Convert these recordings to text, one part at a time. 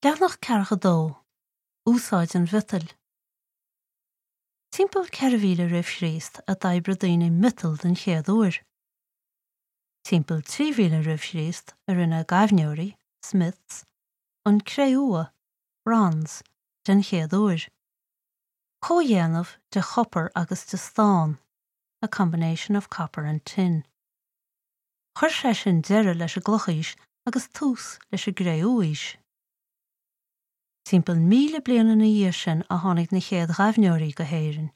Leathanach 42, Úsáid an mhiotail. Timpeall 4000 roimh Chríost a d'oibrigh daoine miotal den chéad uair. Timpeall 3000 roimh Chríost a rinne gaibhneoirí, smiths, an cré-umha, bronze, den chéad uair. Comhdhéanamh de chopar agus de stán, a combination of copper and tin. Chuir sé sin deireadh leis an gClochaois agus tús leis an gCré-umhaois. Timpeall 1,000 bliain ina dhiaidh sin a tháinig na chéad ghaibhneoirí go hÉirinn.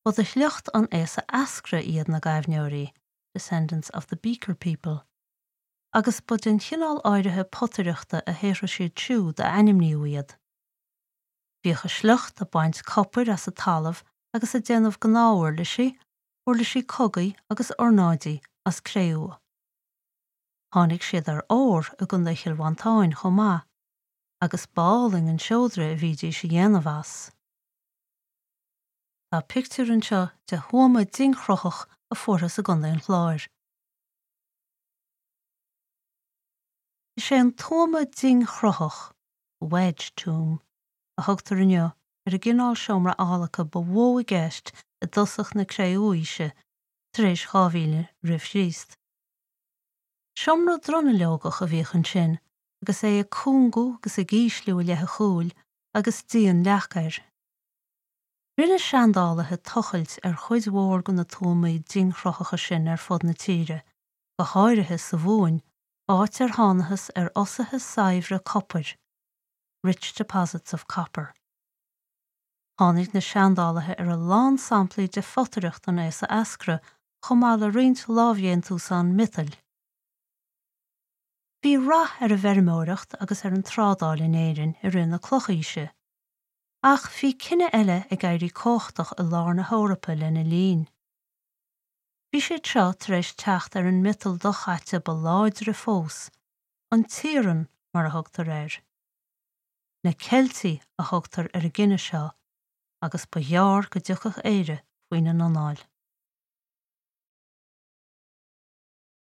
Ba de shliocht an aosa eascra iad na gaibhneoirí, descendants of the Beaker people, agus ba den chineál áirithe potaireachta a shaothraigh siad siúd a ainmníodh iad. Bhíodh a sliocht ag baint copair as an talamh agus ag déanamh gnáthuirlisí, uirlisí cogaidh agus ornáidí as cré-umha. Tháinig siad ar ór i gContae Chill Mhantáin chomh maith, agus b'álainn an seodra a bhídís a dhéanamh as. Tá pictiúr anseo de thuama dingchruthach a fuarthas i gContae an Chláir. Is é an tuama dingchruthach, wedge tomb, a thugtar inniu ar an gcineál seomra adhlactha ba mhó i gceist i dtosach na Cré-Umhaoise, tar éis 2000 roimh Chríost. Seomra dronuilleogach a bhíodh ansin agus é ag cúngú agus ag ísliú i leith an chúil agus díon leac air. Rinne seandálaithe tochailt ar chuid mhór de na tuamaí dingchruthacha sin ar fud na tíre, go háirithe sa Mhumhain, áit ar thánathas ar fhosuithe saibhre copair. rich deposits of copper. Tháinig na seandálaithe ar a lán samplaí de photaireacht an aosa eascra chomh maith le roinnt lámhdhéantúsán miotail. Bhí rath ar an bhfeirmeoireacht agus ar an trádáil in Éirinn i rith na Clochaoise. Ach bhí cine eile ag éirí cumhachtach i lár na hEorpa lena linn. Bhí siad seo tar éis teacht ar an miotal dochaite ba láidre fós, an t-iarann mar a thugtar air. Na Ceiltigh a thugtar ar an gcine seo agus ba ghearr go dtiocfadh Éire faoina n-anáil.